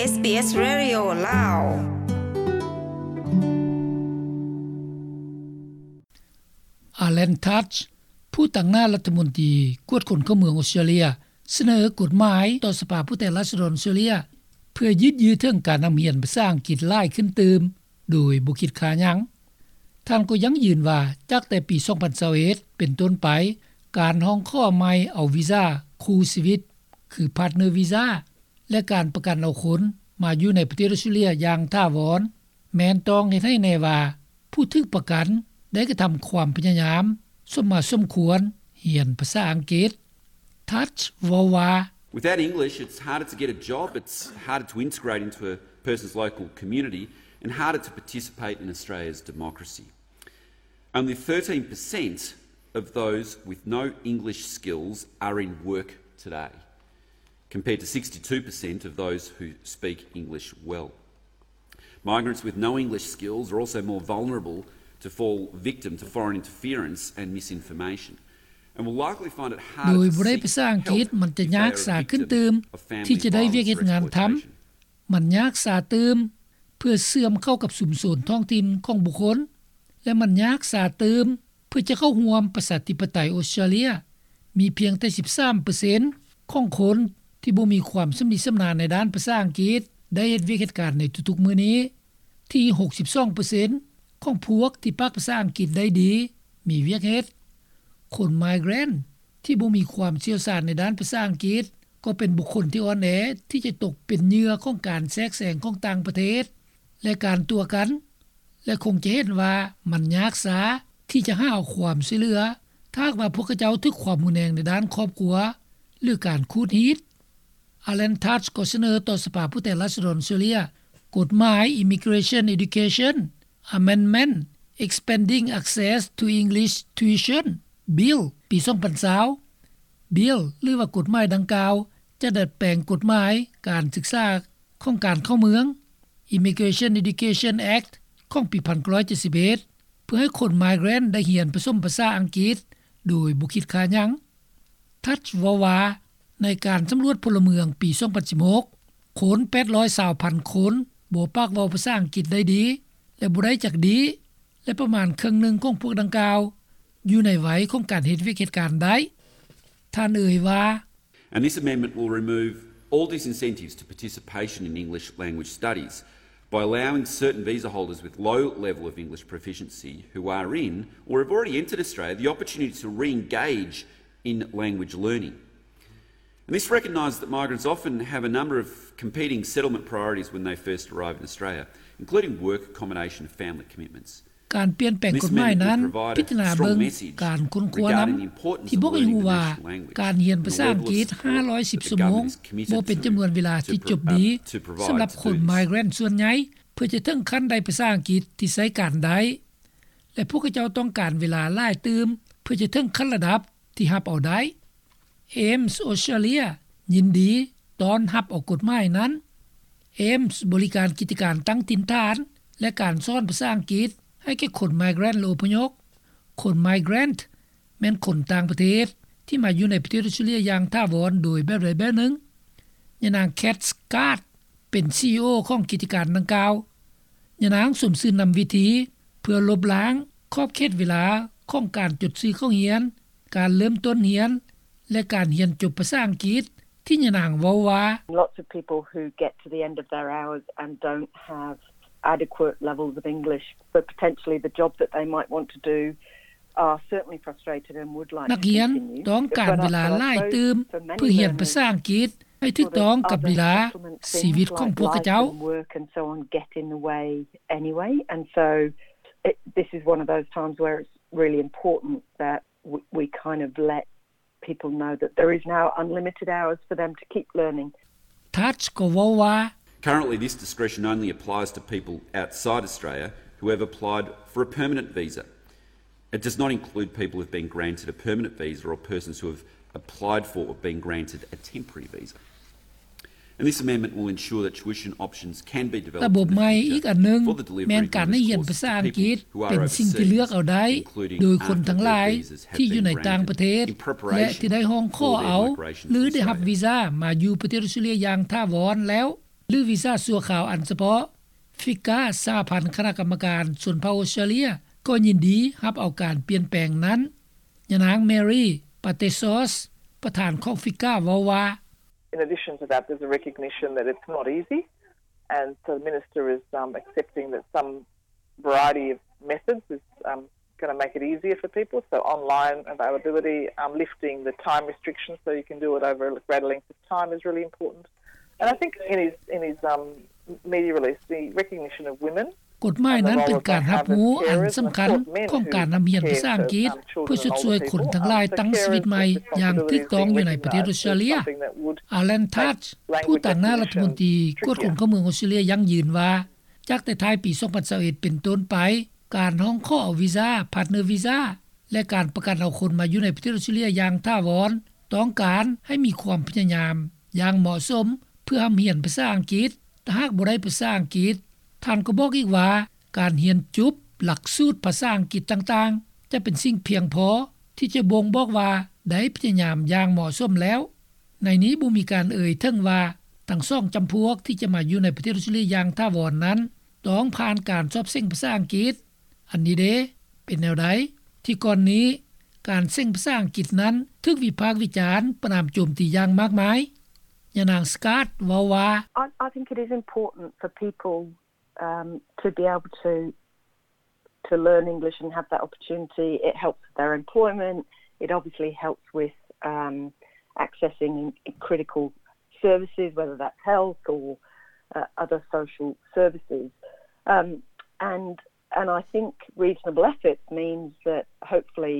ເອສບີເອສ Radio ລາວ. Alan Tudge ຜູ້ຕາງໜ້າລັດຖະມົນຕີກວດຄົນເຂົ້າເມືອງອົດສະຕຣາເລຍ ສະເໜີກົດໝາຍຕໍ່ສະພາຜູ້ແທນລາຊະດອນອົດສະຕຣາເລຍ ເພື່ອຍືດເຍື້ອເຖິງການນຳຮຽນພາສາອັງກິດຫຼາຍຂຶ້ນຕື່ມ ໂດຍບໍ່ຄິດຄ່າຫຍັງ. ທ່ານກໍຢັ້ງຢືນວ່າ ຈາກແຕ່ປີສອງພັນຊາວເອັດເປັນຕົ້ນໄປ, ການຮ້ອງຂໍໃໝ່ເອົາວີຊາຄູ່ຊີວິດ ຄື Partner Visa ແລະ ການປະກັນເອົາຄົນມາຢູ່ໃນປະເທດອົດສະຕຣາເລຍຢ່າງຖາວອນ ແມ່ນຕ້ອງເຮັດໃຫ້ແນ່ວ່າ ຜູ້ຖືກປະກັນໄດ້ກະທຳຄວາມພະຍາຍາມສົມມາສົມຄວນຮຽນພາສາອັງກິດ. Tudge ເວົ້າວ່າ Without English, it's harder to get a job, it's harder to integrate into a person's local community, and harder to participate in Australia's democracy. Only thirteen percent of those with no English skills are in work today, compared to sixty-two percent of those who speak English well. Migrants with no English skills are also more vulnerable to fall victim to foreign interference and misinformation, and will likely find it harder to seek help if they are a victim of family violence or exploitation. ມັນຍາກສາຕື່ມເພື່ອເຊື່ອມເຂົ້າກັບຊຸມຊົນທ້ອງຖິ່ນຂອງບຸກຄົນ ແລະ ມັນຍາກສາຕື່ມເພື່ອຈະເຂົ້າຮ່ວມປະຊາທິປະໄຕອົດສະຕຣາເລຍ. ມີພຽງແຕ່ສິບສາມເປີເຊັນຂອງຄົນທີ່ບໍ່ມີຄວາມຊຳນິຊຳນານໃນດ້ານພາສາອັງກິດໄດ້ເຮັດວຽກເຮັດການໃນທຸກໆມື້ນີ້. ທີ່ຫົກສິບສອງເປີເຊັນຂອງພວກທີ່ປາກພາສາອັງກິດໄດ້ດີມີວຽກເຮັດ. ຄົນ migrant ທີ່ບໍ່ມີຄວາມຊ່ຽວຊານໃນດ້ານພາສາອັງກິດ ກໍເປັນບຸກຄົນທີ່ອ່ອນແອທີ່ຈະຕົກເປັນເຫຍື່ອຂອງການແຊກແຊງຂອງຕ່າງປະເທດ ແລະ ການຕົວະກັນ ແລະ ຄົງຈະເຫັນວ່າມັນຍາກຊ້າທີ່ຈະຫາຄວາມຊ່ວຍເຫຼືອ ຖ້າຫາກວ່າພວກເຂົາເຈົ້າຖືກຄວາມຮຸນແຮງໃນດ້ານຄອບຄົວ ຫຼື ການຂູດຮີດ. Alan Tudge ກໍສະເໜີຕໍ່ສະພາຜູ້ແທນລາຊະດອນອົດສະຕຣາເລຍ ກົດໝາຍ Immigration Education Amendment Expanding Access to English Tuition Bill ປີສອງພັນຊາວ. Bill ຫຼືວ່າກົດໝາຍດັ່ງກ່າວ ຈະດັດແປງກົດໝາຍການສຶກສາຂອງການເຂົ້າເມືອງ Immigration Education Act ຂອງປີໜຶ່ງພັນເກົ້າຮ້ອຍເຈັດສິບເອັດ ເພື່ອໃຫ້ຄົນ migrant ໄດ້ຮຽນປະສົມພາສາອັງກິດໂດຍບໍ່ຄິດຄ່າຫຍັງ. Tudge ເວົ້າວ່າ ໃນການສຳຫຼວດພົນລະເມືອງປີສອງພັນສິບຫົກ ຄົນແປດຮ້ອຍຊາວພັນຄົນບໍ່ປາກເວົ້າພາສາອັງກິດໄດ້ດີ ແລະ ບໍ່ໄດ້ຈັກດີ ແລະ ປະມານເຄິ່ງໜຶ່ງຂອງພວກດັ່ງກ່າວຢູ່ໃນໄວຂອງການເຮັດວຽກເຮັດການໄດ້. ທ່ານເອີ່ຍວ່າ And this amendment will remove all disincentives to participation in English language studies by allowing certain visa holders with low level of English proficiency who are in or have already entered Australia the opportunity to re-engage in language learning. And this recognises that migrants often have a number of competing settlement priorities when they first arrive in Australia, including work, accommodation and family commitments. ການປ່ຽນແປງກົດໝາຍນັ້ນ ພິຈາລະນາເບິ່ງການຄົ້ນຄວ້ານຳ ທີ່ບອກໃຫ້ຮູ້ວ່າ ການຮຽນພາສາອັງກິດຫ້າຮ້ອຍສິບຊົ່ວໂມງ ບໍ່ເປັນຈຳນວນເວລາທີ່ຈົບດີ ສຳລັບຄົນ migrant ສ່ວນໃຫຍ່ ເພື່ອຈະເຖິງຂັ້ນໄດ້ພາສາອັງກິດທີ່ໃຊ້ການໄດ້ ແລະ ພວກເຂົາເຈົ້າຕ້ອງການເວລາຫຼາຍຕື່ມ ເພື່ອຈະເຖິງຂັ້ນລະດັບທີ່ຮັບເອົາໄດ້. AMES Australia ຍິນດີຕ້ອນຮັບເອົາກົດໝາຍນັ້ນ. AMES ບໍລິການກິດຈະການຕັ້ງຖິ່ນຖານ ແລະ ການສອນພາສາອັງກິດໃຫ້ແກ່ຄົນ migrant ແລະ ອົບພະຍົບ. ຄົນ migrant ແມ່ນຄົນຕ່າງປະເທດທີ່ມາຢູ່ໃນປະເທດອົດສະຕຣາເລຍຢ່າງຖາວອນໂດຍແບບໃດແບບໜຶ່ງ. ຍານາງ Kat Scott ເປັນ CEO ຂອງກິດຈະການດັ່ງກ່າວ. ຍານາງສົມຊື່ນນຳວິທີເພື່ອລົບລ້າງຂອບເຂດເວລາຂອງການຈົດຊື່ເຂົ້າຮຽນ, ການເລີ່ມຕົ້ນຮຽນ ແລະ ການຮຽນຈົບພາສາອັງກິດ ທີ່ຍານາງເວົ້າວ່າ Lots of people who get to the end of their hours and don't have adequate levels of English for potentially the job that they might want to do are certainly frustrated and would like to continue. ນັກຮຽນຕ້ອງການເວລາຫຼາຍຕື່ມເພື່ອຮຽນພາສາອັງກິດ ໃຫ້ຖືກຕ້ອງກັບເວລາຊີວິດຂອງພວກເຂົາເຈົ້າ. But I suppose for many learning skills, the pressures of other supplementary things like life and work and so on get in the way anyway. And so it, this is one of those times where it's really important that we, we kind of let people know that there is now unlimited hours for them to keep learning. Tudge ກໍເວົ້າວ່າ Currently, this discretion only applies to people outside Australia who have applied for a permanent visa. It does not include people who've been granted a permanent visa or persons who have applied for or been granted a temporary visa. And this amendment will ensure that tuition options can be developed in the future for the delivery of English courses to people who are overseas, including after visas have been granted to permanent visas. ລະບົບໃໝ່ອີກອັນໜຶ່ງ ແມ່ນການໃຫ້ຮຽນພາສາອັງກິດເປັນສິ່ງທີ່ເລືອກເອົາໄດ້ ໂດຍຄົນທັງຫຼາຍທີ່ບໍ່ໄດ້ຮູ້ວ່າ ການຮຽນພາສາອັງກິດເປັນສິ່ງທີ່ເລືອກເອົາໄດ້ ແລະ ທີ່ໄດ້ຮ້ອງຂໍເອົາ ຫຼື ໄດ້ຮັບວີຊາມາຢູ່ປະເທດອົດສະຕຣາເລຍຢ່າງຖາວອນແລ້ວ ຫຼືວີຊາຊົ່ວຄາວອັນສະເພາະ. ຟິກາ ສະຫະພັນຄະນະກຳມະການຊົນເຜົ່າອົດສະຕຣາເລຍ ກໍຍິນດີຮັບເອົາການປ່ຽນແປງນັ້ນ. ຍານາງ Mary Patesos ປະທານຂອງຟິກາ ເວົ້າວ່າ: In addition to that, there's a recognition that it's not easy, and so the minister is, um, accepting that some variety of methods is, um, gonna make it easier for people. So online availability, um, lifting the time restrictions so you can do it over a greater length of time is really important. And I think in his, in his, um, media release, the recognition of women ກົດໝາຍນັ້ນເປັນການຮັບຮູ້ອັນສຳຄັນຂອງການນຳຮຽນພາສາອັງກິດ ເພື່ອຊົດຊ່ວຍຄົນທັງຫຼາຍຕັ້ງຊີວິດໃໝ່ຢ່າງຖືກຕ້ອງຢູ່ໃນປະເທດອົດສະຕຣາເລຍ. Alan Tudge ຜູ້ຕາງໜ້າລັດຖະມົນຕີກວດຄົນເຂົ້າເມືອງອົດສະຕຣາເລຍ ຢັ້ງຢືນວ່າ ຈາກແຕ່ທ້າຍປີສອງພັນຊາວເອັດເປັນຕົ້ນໄປ, ການຮ້ອງຂໍເອົາວີຊາ, partner visa ແລະ ການປະກັນເອົາຄົນມາຢູ່ໃນປະເທດອົດສະຕຣາເລຍຢ່າງຖາວອນ ຕ້ອງການໃຫ້ມີຄວາມພະຍາຍາມຢ່າງເໝາະສົມ ເພື່ອຮ່ຳຮຽນພາສາອັງກິດ. ຖ້າຫາກບໍ່ໄດ້ພາສາອັງກິດ, ທ່ານກໍບອກອີກວ່າ ການຮຽນຈົບຫຼັກສູດພາສາອັງກິດຕ່າງໆ ຈະເປັນສິ່ງພຽງພໍທີ່ຈະບົ່ງບອກວ່າໄດ້ພະຍາຍາມຢ່າງເໝາະສົມແລ້ວ. ໃນນີ້ບໍ່ມີການເອີ່ຍເຖິງວ່າ ທັງສອງຈຳພວກທີ່ຈະມາຢູ່ໃນປະເທດອົດສະຕຣາເລຍຢ່າງຖາວອນນັ້ນ ຕ້ອງຜ່ານການສອບເສັງພາສາອັງກິດ. ອັນນີ້ເດ ເປັນແນວໃດ? ທີ່ກ່ອນນີ້ ການເສັງພາສາອັງກິດນັ້ນ ຖືກວິພາກວິຈານປະນາມໂຈມຕີຢ່າງມາກມາຍ. ຍານາງ Scott ເວົ້າວ່າ: I, I think it is important for people, um, to be able to, to learn English and have that opportunity. It helps with their employment. It obviously helps with, um, accessing critical services, whether that's health or, uh, other social services. Um, and, and I think reasonable efforts means that hopefully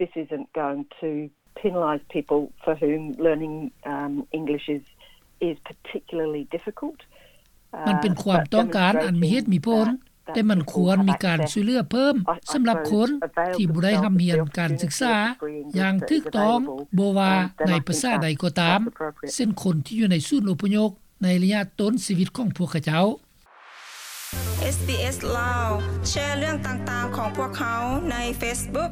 this isn't going to penalise people for whom learning, um, English is, is particularly difficult. ມັນເປັນຄວາມຕ້ອງການອັນມີເຫດມີຜົນ, ແຕ່ມັນຄວນມີການຊ່ວຍເຫຼືອເພີ່ມສຳລັບຄົນທີ່ບໍ່ໄດ້ຮ່ຳຮຽນການສຶກສາຢ່າງຖືກຕ້ອງ, ບໍ່ວ່າໃນພາສາໃດກໍຕາມ, ເຊັ່ນຄົນທີ່ຢູ່ໃນສູນອົບພະຍົບໃນໄລຍະຕົ້ນຊີວິດຂອງພວກເຂົາເຈົ້າ. ເອສບີເອສ ລາວ ແຊເລື່ອງຕ່າງໆຂອງພວກເຮົາໃນເຟສບຸກ.